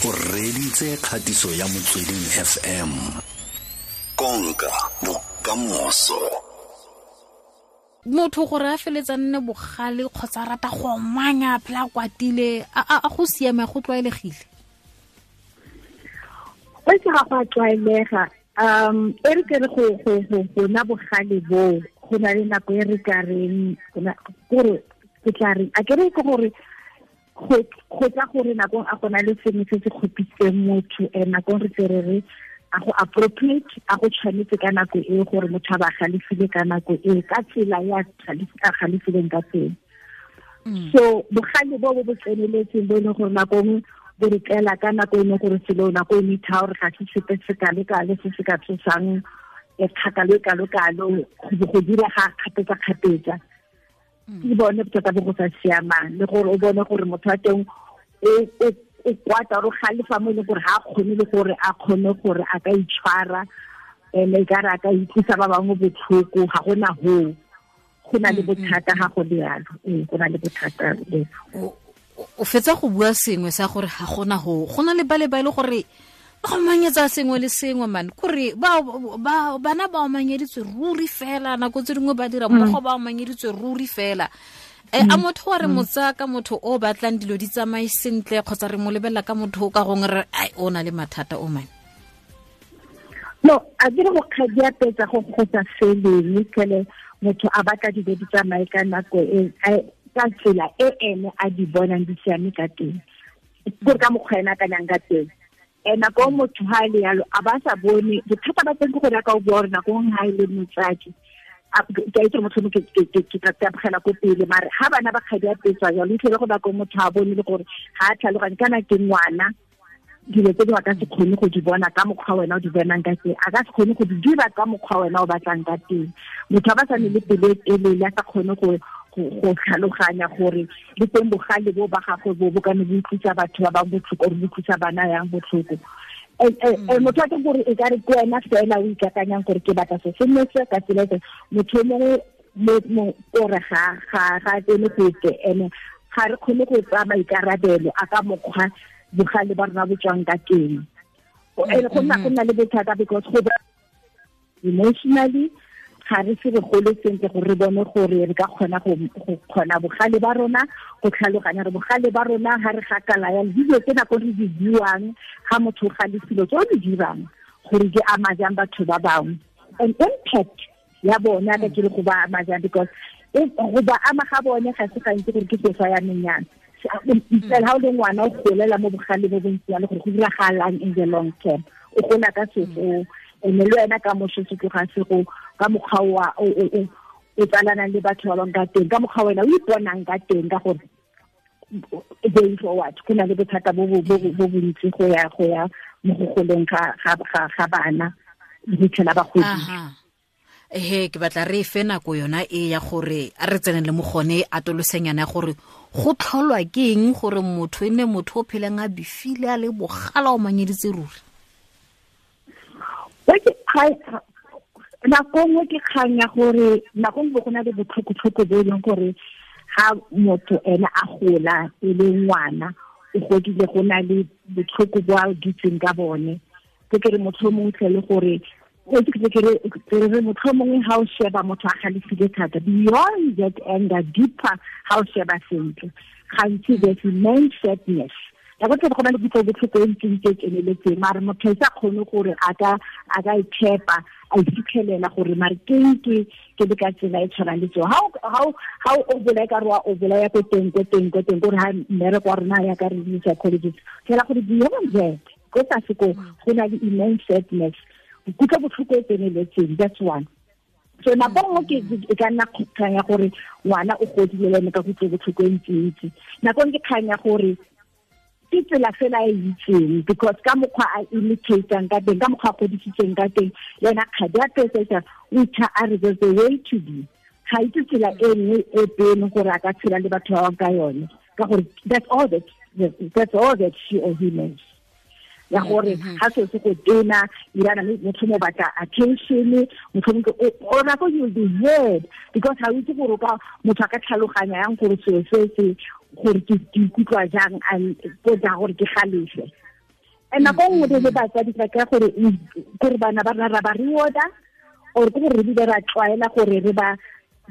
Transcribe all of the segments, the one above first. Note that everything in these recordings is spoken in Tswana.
O reditse kgatiso ya Motsweding FM. Konka bokamoso. Motho gore a feletsa nne bogale kgotsa rata go omanya phela kwatile, a go siame, go tlwaelegile? Go se ga go a tlwaelega. E re ke re go na bogale bo go na le nako e re ka reng gore ke tla reng, a ke re ke gore go tla gore nakong a gona le sengwe se se kgopisitseng motho, nakong re tse re re a go appropriate, a go tshwanetse ka nako e gore motho a ba galefile ka nako e ka tsela ya a galefileng ka teng. So bogale bo bo tseneletseng bo e leng gore nako nngwe bo re tlela ka nako e leng gore selo nako e itha gore ga se sepe se kalo-kalo se se ka tsosang kgakalo e kalo-kalo go dira ga kgapetsa-kgapetsa. Ke bone bothata bo go sa siamang, le gore o bone gore motho wa teng o kwata o galefa mo e leng gore ga a kgone le gore a kgone gore a ka itshwara, ene e ka re a ka utlwisa ba bangwe botlhoko, ga gona hoo. Go na le bothata ga go le yalo. Ee, go na le bothata le. O fetsa go bua sengwe sa gore ga gona hoo. Go na le ba le ba e le gore ba omanyetsa sengwe le sengwe man, kore bana ba omanyeditswe ruri fela, nako tse dingwe ba dira mmogo ba omanyeditswe ruri fela. A motho wa re motsa ka motho o batlang dilo di tsamaye sentle, kgotsa re mo lebelela ka motho o ka gongwe re ai o na le mathata o man? No, a ke re go kgadiapetsa go sa feleng, kele motho a batla dilo di tsamaye ka nako e, ka tsela e ene a di bonang di siame ka teng, gore ka mokgwa ena a akanyang ka teng. Nako motho ha le yalo a ba sa bone bothata ba teng ke gore ka o bua gore nako nngwe ha e le motsadi, ke a itse motho ke tla tabogela ko pele, mare ha bana ba kgadi a petswa jalo, itlhele go nako motho a bone le gore ha a tlhaloganye kana ke ngwana, dilo tse dingwe a ka se kgone go di bona ka mokgwa wena o di bonang ka teng, a ka se kgone go di dira ka mokgwa wena o batlang ka teng. Motho a ba sa ne le pelo e telele, a sa kgone go tlhaloganya gore le teng bogale bo ba gagwe bo bo ka ne bo utlwisa batho ba bangwe botlhoko, or bo utlwisa bana yang botlhoko. Motho a teng gore e ka re ke wena fela o ikakanyang gore ke batla se nne se ka tsela e, motho o mongwe ore ga tsene gope, ene ga re kgone go tsaya maikarabelo a ka mokgwa bogale ba rona bo tswang ka teng. Ene go nna le bothata because go emotionally ga re se re gole sentle gore re bone gore re ka kgona go kgona bogale ba rona, go tlhaloganya re bogale ba rona ha re gakala ya dilo tse nako re di buang ha motho o galefile, tse o di dirang gore di ama jang batho ba bangwe, and impact ya bona ka ke le go ba ama jang, because go ba ama ga bone ga se gantsi gore ke sefa ya menyana. Fela ha o le ngwana o golela mo bogale bo bontsi jalo gore go diragalang in the long term, o gola ka sefo, ene le wena ka moso se tloga se go ka mokgwa wa o tsalanang le batho ba bangwe ka teng, ka mokgwa wena o iponang ka teng, ka gore going forward go na le bothata bo bontsi go ya mo go goleng ga bana le go fitlhela ba godile. Ehe, ke batla re fe nako yona e ya gore a re tsene le mo gone atolosenyana ya gore go tlholwa ke eng gore motho e nne motho o pheleng a bifile a le bogala o manyeditse ruri. Nako nngwe ke kgang ya gore nako nngwe go na le botlhokotlhoko bo e leng gore ha motho ene a gola e le ngwana o godile go na le botlhoko bo a dutseng ka bone. Ke re motho o mongwe tle le gore re motho o mongwe ha o sheba motho a galefile thata, beyond that anger, deeper ha o sheba sentle, gantsi there's immense sadness. Nako tse go na le kutlobotlhoko e ntseng e tseneletseng, mare motho a sa kgone gore a ka itshepa, a ifitlhelela gore mare ke ke le ka tsela e tshwanang le tseo. Ha o bolaya ka re wa o bolaya ko teng, gore ha mmereko wa rona ya ka re le psychologist, fela gore beyond that, ko tlase ko go na le immense sadness, kutlobotlhoko e tseneletseng, that's one. So nako nngwe ke e ka nna kgang ya gore ngwana o godile le ene ka kutlobotlhoko e ntsi-ntsi. Nako nngwe ke kgang ya gore ke tsela fela e itseng, because ka mokgwa a imitatang ka teng, ka mokgwa a godisitseng ka teng, le ena kgadi a petsa o itha a re there's a way to be. Ga itse tsela e nngwe e pele gore a ka tshela le batho ba bangwe ka yone, ka gore that's all that she or he knows. Ya gore ha se se go tena irana motho mo batla attention, motho mo o nako you will be heard, because ha o itse gore ka motho a ka tlhaloganya yang gore selo se se gore ke ikutlwa jang, and go ja gore ke galefe. And nako nngwe re le batsadi re ka gore gore bana ba rona ra ba rewarda or ke gore re bile ra tlwaela gore re ba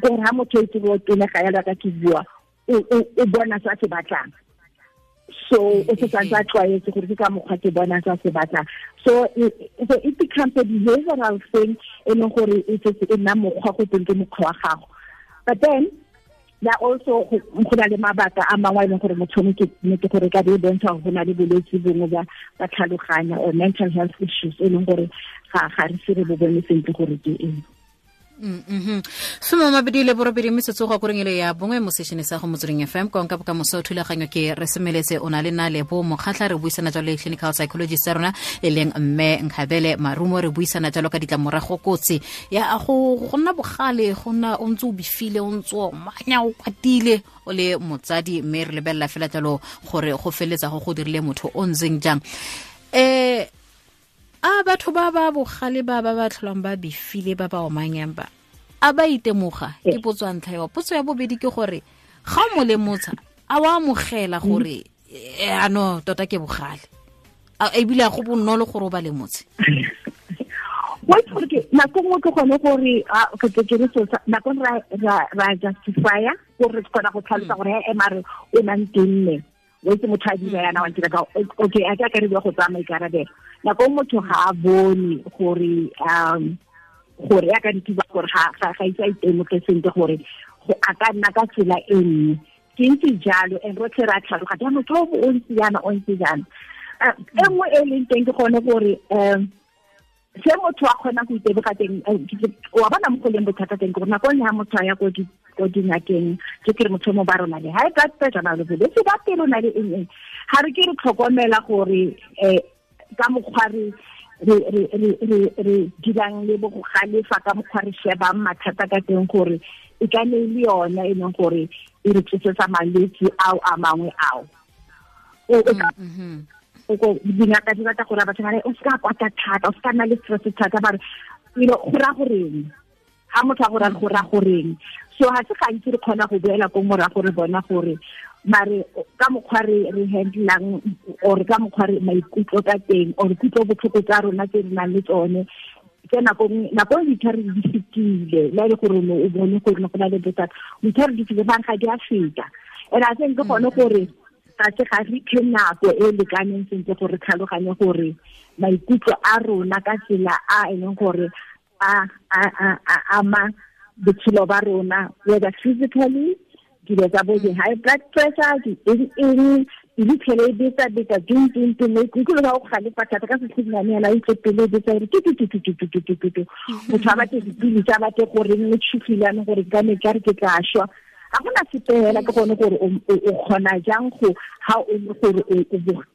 gore ha motho e tsebo tenega yalo ka ke bua o bona se a se batlang. So o se santse a tlwaetse gore ke ka mokgwa ke bona se a se batlang. So it becomes a behavioral thing e leng gore e setse e nna mokgwa go teng ke mokgwa wa gago. But then there also go na le mabaka a mangwe a e leng gore motho ke nnete gore ka be e bontsha gore go na le bolwetse bongwe ba tlhaloganya or mental health issues e leng gore ga re se re bo bone sentle gore ke eng. 28 metsotso go koreng ele ya bongwe mo sešene sa go Motsweding FM konka bokamoso thulaganyo ke re semeletse o na le na Lebo Mokgatlha re buisana jalo le clinical psychologist ya rona e leng mme Nkgabele Marumo re buisana jalo ka ditlamorago kotsi ya go nna bogale go nna o ntse o bifile o ntse o manya o kwatile o le motsadi mme re lebelela fela jalo gore go feletsa go dirile motho o ntseng jang. A batho ba ba bogale ba ba ba tlholang ba bifile ba ba omanyang ba a ba itemoga ke potso ya ntlha eo. Potso ya bobedi ke gore ga o mo lemotsha a wa amogela gore ano tota ke bogale ebile a go bonolo gore o ba lemotshe. Wa itse gore ke nako nngwe ke gone gore ke re so nako ra justify-a gore re kgona go tlhalosa gore he mare o nang tenne o itse motho a dira yana wa ntira ka okay a ka re bua go tsaya maikarabelo. Nako motho ga a bone gore gore ya ka dituba gore ga itse a itemoge sentle gore a ka nna ka tsela e nngwe ke ntse jalo and rotlhe re a tlhaloganya motho o ntse jaana o ntse jaana. E nngwe e leng teng ke gone gore se motho a kgonang go iteboga teng wa bona mo go leng bothata teng ke gore nako nngwe ha motho a ya ko dingakeng ke kere motho mo ba rona le high blood pressure na le bolwetse ba pelo na le eng eng ga re ke re tlhokomela gore ka mokgwa re dirang le bo go galefa ka mokgwa re shebang mathata ka teng gore e ka ne le yona e leng gore e re tsosetsa malwetse ao a mangwe ao. Dingaka di batla gore batho ba re o se ka kwata thata o se ka nna le stress thata ba re you know go raya goreng ha motho a go raya go raya goreng. So ha se gantsi re kgona go boela ko morago re bona gore mare ka mokgwa re handlang or ka mokgwa re maikutlo ka teng or kutlo botlhoko tsa rona tse re nang le tsone tse nako ditlhare di fetile le e le gore o bone gore go na le bothata ditlhare di fetile bang ga di a feta. And I think ke gone gore ga se ga re iphe nako e lekaneng sentle gore tlhaloganye gore maikutlo a rona ka tsela a e leng gore a ama botshelo ba rona whether physically dilo tsa bo di-high blood pressure di eng di tlhele e betsa betsa ding ding ding maikutlo ba go galefa thata ka setlhinyane yana o utlwe pelo e betsa gore tu motho a batle dipilisi a batle gore nne tshogile yanong gore ka ne ka re ke tla šwa ga gona sepe fela ke gone gore o kgona jang go ha o le gore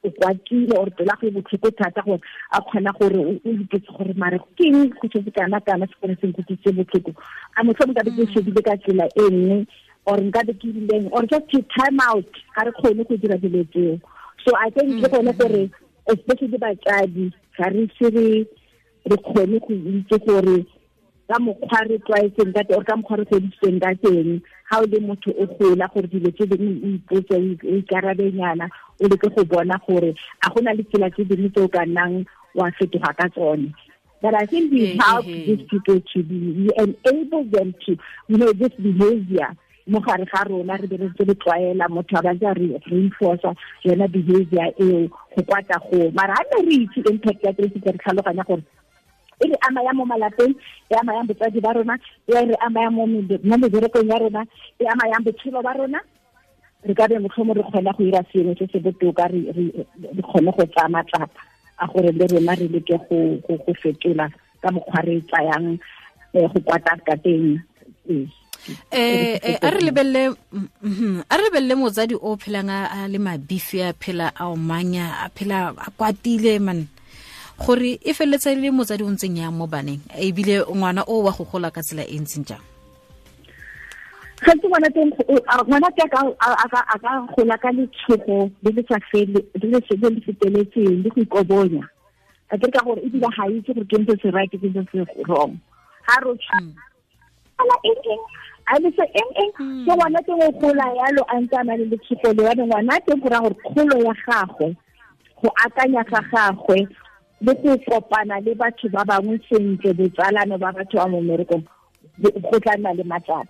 o kwatile or pela go e botlhoko thata gore a kgona gore o ipotse gore mare ke eng go setse kana kana se gone se nkutlwisitse botlhoko a motlhomong ka be ke shebile ka tsela e nngwe or nka be ke rileng or just to time out ga re kgone go dira dilo tseo. So I think ke gone gore especially batsadi ga re se re kgone go itse gore ka mokgwa re tlwaetseng ka teng or ka mokgwa re godisitsweng ka teng ga o le motho o gola gore dilo tse dingwe o ipotse o ikarabenyana o leke go bona gore a go na le tsela tse dingwe tse o ka nnang wa fetoga ka tsone. But I think we help these people to be, we enable them to, you know, this behavior mo gare ga rona re be re ntse re tlwaela motho a ba ntse a re reinforce yona behavior eo go kwata go mara ha ne re itse impact ya teng re tlhaloganya gore e re ama ya mo malapeng e ama yang botsadi ba rona e re ama ya mo meberekong ya rona e ama yang botshelo ba rona re ka be motlhomo re kgona go ira sengwe se se botoka re kgone go tsaya matsapa a gore le rona re leke go fetola ka mokgwa re tsayang go kwata ka teng. A re lebelele motsadi o phelang a le mabifi a phela a omanya a phela a kwatile man gore e felletsa le motsadi o ntseng yang mo baneng ebile ngwana o wa go gola ka tsela e ntseng jang. Gantsi ngwana teng ngwana ke a ka gola ka letshogo le le sa fele le le feteletseng le go ikobonya a ke ka gore ebile ga itse gore ke ntse se right ke ntse se wrong ha ro ala eng eng a le se eng eng so ngwana teng o gola yalo a ntse a na le letshogo le wa ngwana teng go raya gore kgolo ya gagwe Go akanya ga gagwe le go kopana le batho ba bangwe sentle, botsalano ba batho ba mo mmerekong, go tla nna le matsapa.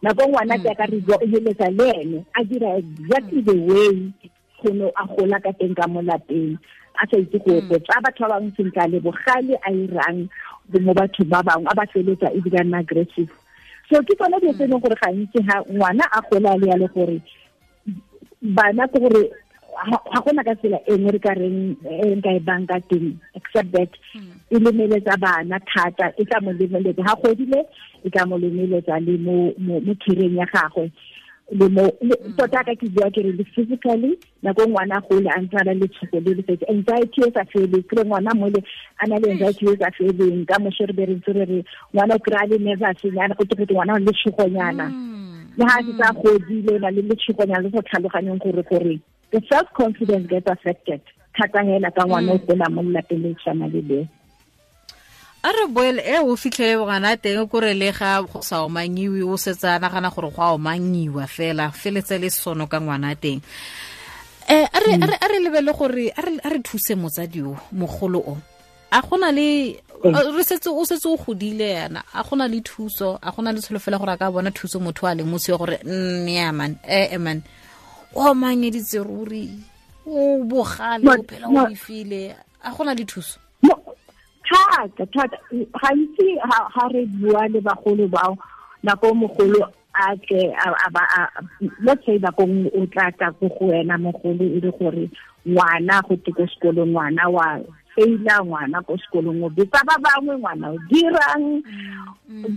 Nako ngwana ke ka re bua o heletsa le ene a dira exactly the way go no a gola ka teng ka mo lapeng, a sa itse go tsa batho ba bangwe sentle, le bogale a irang mo batho ba bangwe, a ba feletsa ebile a nna aggressive. So ke tsone dilo tse e leng gore gantsi ha ngwana a gola le ya le gore bana ke gore ga gona ka tsela e nngwe re ka reng e nka e bang ka teng, except that e lemeletsa bana thata, e tla mo lemeletsa ha godile, e tla mo lemeletsa le mo career ya gagwe, le mo tota ka ke bua ke re le physically. Nako ngwana gole a ntse a na le tshogo le le anxiety e sa feleng, kry ngwana mole a na le anxiety e sa feleng, ka moso re be re ntse re re ngwana o kry-a le nervous nyana, go te ngwana o le tshogonyana, le ha se sa godile o na le letshogonyana le sa tlhaloganyeng gore the self-confidence gets affected thata hela ka ngwana o gola mo lelapeng le tshwana le leo. A re boele e o fitlhele ngwana teng kore le ga go sa omangiwe, o setse a nagana gore go a omangiwa fela, feletse le sono ka ngwana teng. A re lebele gore a re thuse motsadi o mogolo o, a gona le re setse o setse o godile yana, a gona le thuso, a gona le tsholofelo gore a ka bona thuso motho a leng motse gore nya man man o mangeditse ruri, o bogale, o phela o bifile, a gona le thuso? Thata thata gantsi ha re bua le bagolo bao, nako mogolo a tle a ba let's say nako o tla tla go go wena mogolo e le gore ngwana go te ko sekolong, ngwana wa feila, ngwana ko sekolong o betsa ba bangwe, ngwana o dirang.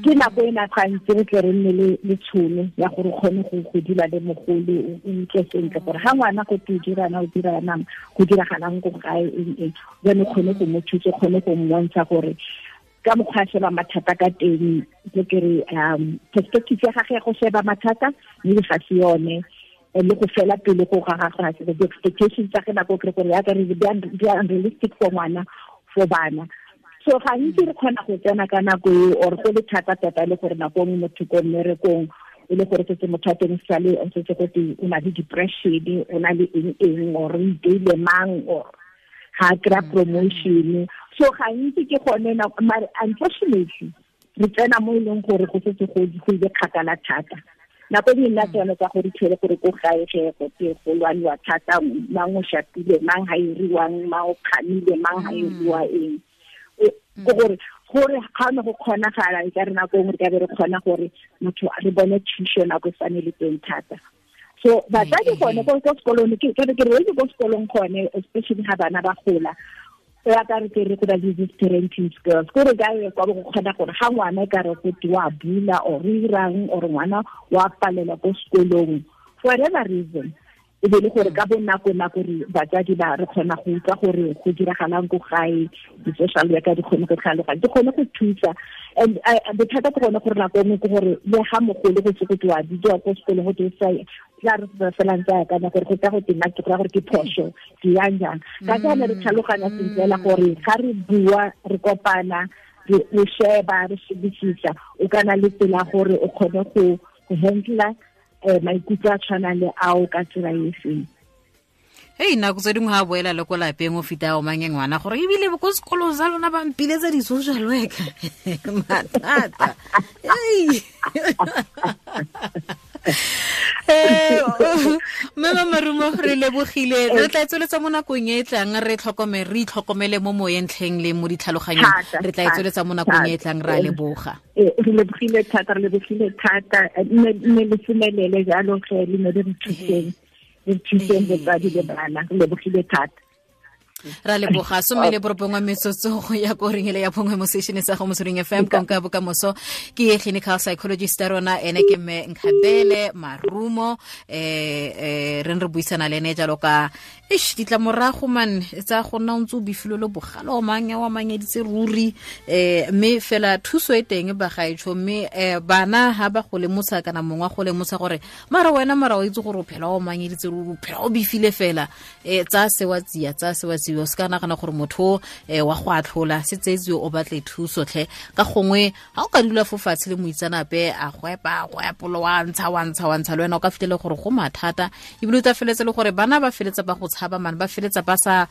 Ke nako e na gantsi re tle re nne le tšhono ya gore o kgone go dula le mogolo, o utlwe sentle gore ga ngwana go te o dirana, o dirana, go diragalang ko gae eng eng, jane kgone go mo thusa, kgone go mmontsha gore ka mokgwa a sheba mathata ka teng, ke kere perspective ya gagwe ya go sheba mathata mme ga se yone, le go fela pele go ga gagwe ga se di-expectations tsa ge nako kry gore yaka re di unrealistic for ngwana, for bana. So gantsi re kgona go tsena ka nako eo, or go le thata tota le gore nako nngwe motho ko mmerekong e le gore setse motho a teng sale o setse go te o na le depression, o na le eng eng, or o iteile mang, or ga a kry-a promotion. So gantsi ke gone, mare unfortunately re tsena mo e leng gore go setse go ile kgakala thata. Nako e nna tsone tsa gore tlhele gore ko gae ge go te go lwaniwa thata, mang o shapile, mang ha iriwang, mang o kgamile, mang ha iriwa eng, ke gore ga ne go kgonagala e ka re nako nngwe re ka be re kgona gore motho re bone thuso nako e sane le teng thata. So batsadi gone ko sekolong, ke re ke re ko sekolong gone, especially ha bana ba gola, ya ka re ke re go na le these parenting skills, ko re ka ye kwa go kgona gore ga ngwana e ka re go te wa bula or irang, or ngwana wa palela ko sekolong for whatever reason, e be le gore ka bonako nako re batsadi ba re kgona go utlwa gore go diragalang ko gae, di-social worker di kgone go tlhaloganya, di kgone go thusa. And bothata ke gone gore nako nngwe ke gore le ga mogolo go se go te wa bidiwa ko sekolong go te sa tla re fela ntse a akanya gore go tla go tena ke gore ke phoso ke yang jang. Ka jaana re tlhaloganya sentle fela gore ga re bua, re kopana, re sheba, re shebisisa, o kana le tsela gore o kgone go handle maikutlo a tshwanang le ao ka tsela e seng. Hei, nako tse dingwe ga boela le ko lapeng o fita o mange ngwana gore ebile ko sekolong sa lona ba mpiletsa di-social worker mathata. Mme Marumo, re lebogile, re tla tsweletsa mo nakong e tlang, re tlhokomele, re itlhokomele mo moyeng tlheng le mo ditlhaloganyong, re tla tsweletsa mo nakong e tlang, ra leboga. Re lebogile thata, re lebogile thata, mme le semelele jalo ge le ne le re thuseng, re thuseng botsadi le bana, re lebogile thata. Ra leboga. 19 metsotso go ya ko ring ele ya bongwe mo station sa go Motsweding FM, konka bokamoso. Ke clinical psychologist ya rona, ene ke mme Nkgabele Marumo. Re re buisana le ene jalo ka eish ditlamorago man tsa go nna o ntse o bifile le bogale o mang wa mangeditse ruri, mme fela thuso e teng bagaetsho, mme bana ha ba go lemosa kana mongwe go lemosa gore mara wena mara o itse gore o phela o mangeditse ruri, o phela o bifile fela, tsa sewa tsia, tsa sewa tsia. tseetsiwe, o se ka nagana gore motho wa go atlhola, se tseetsiwe, o batle thuso tlhe. Ka gongwe ga o ka dula fo fatshe le moitsanape a go epa, go epolo, wa ntsha, wa ntsha, wa ntsha, le wena o ka fitlhele gore go mathata, ebile o tla feletse le gore bana ba feletsa ba go tshaba man, ba feletsa ba sa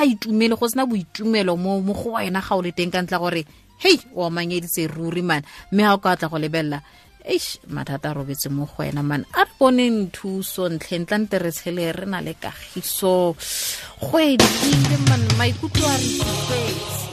itumele, go sena boitumelo mo go wena ga o le teng, ka ntla gore hei, o amanyeditse ruri man. Mme ga o ka tla go lebelela, eish, mathata a robetse mo go wena man. A re boneng thuso ntlheng, tla nte re tshele re na le kagiso go edile man, maikutlo a re tsofetse.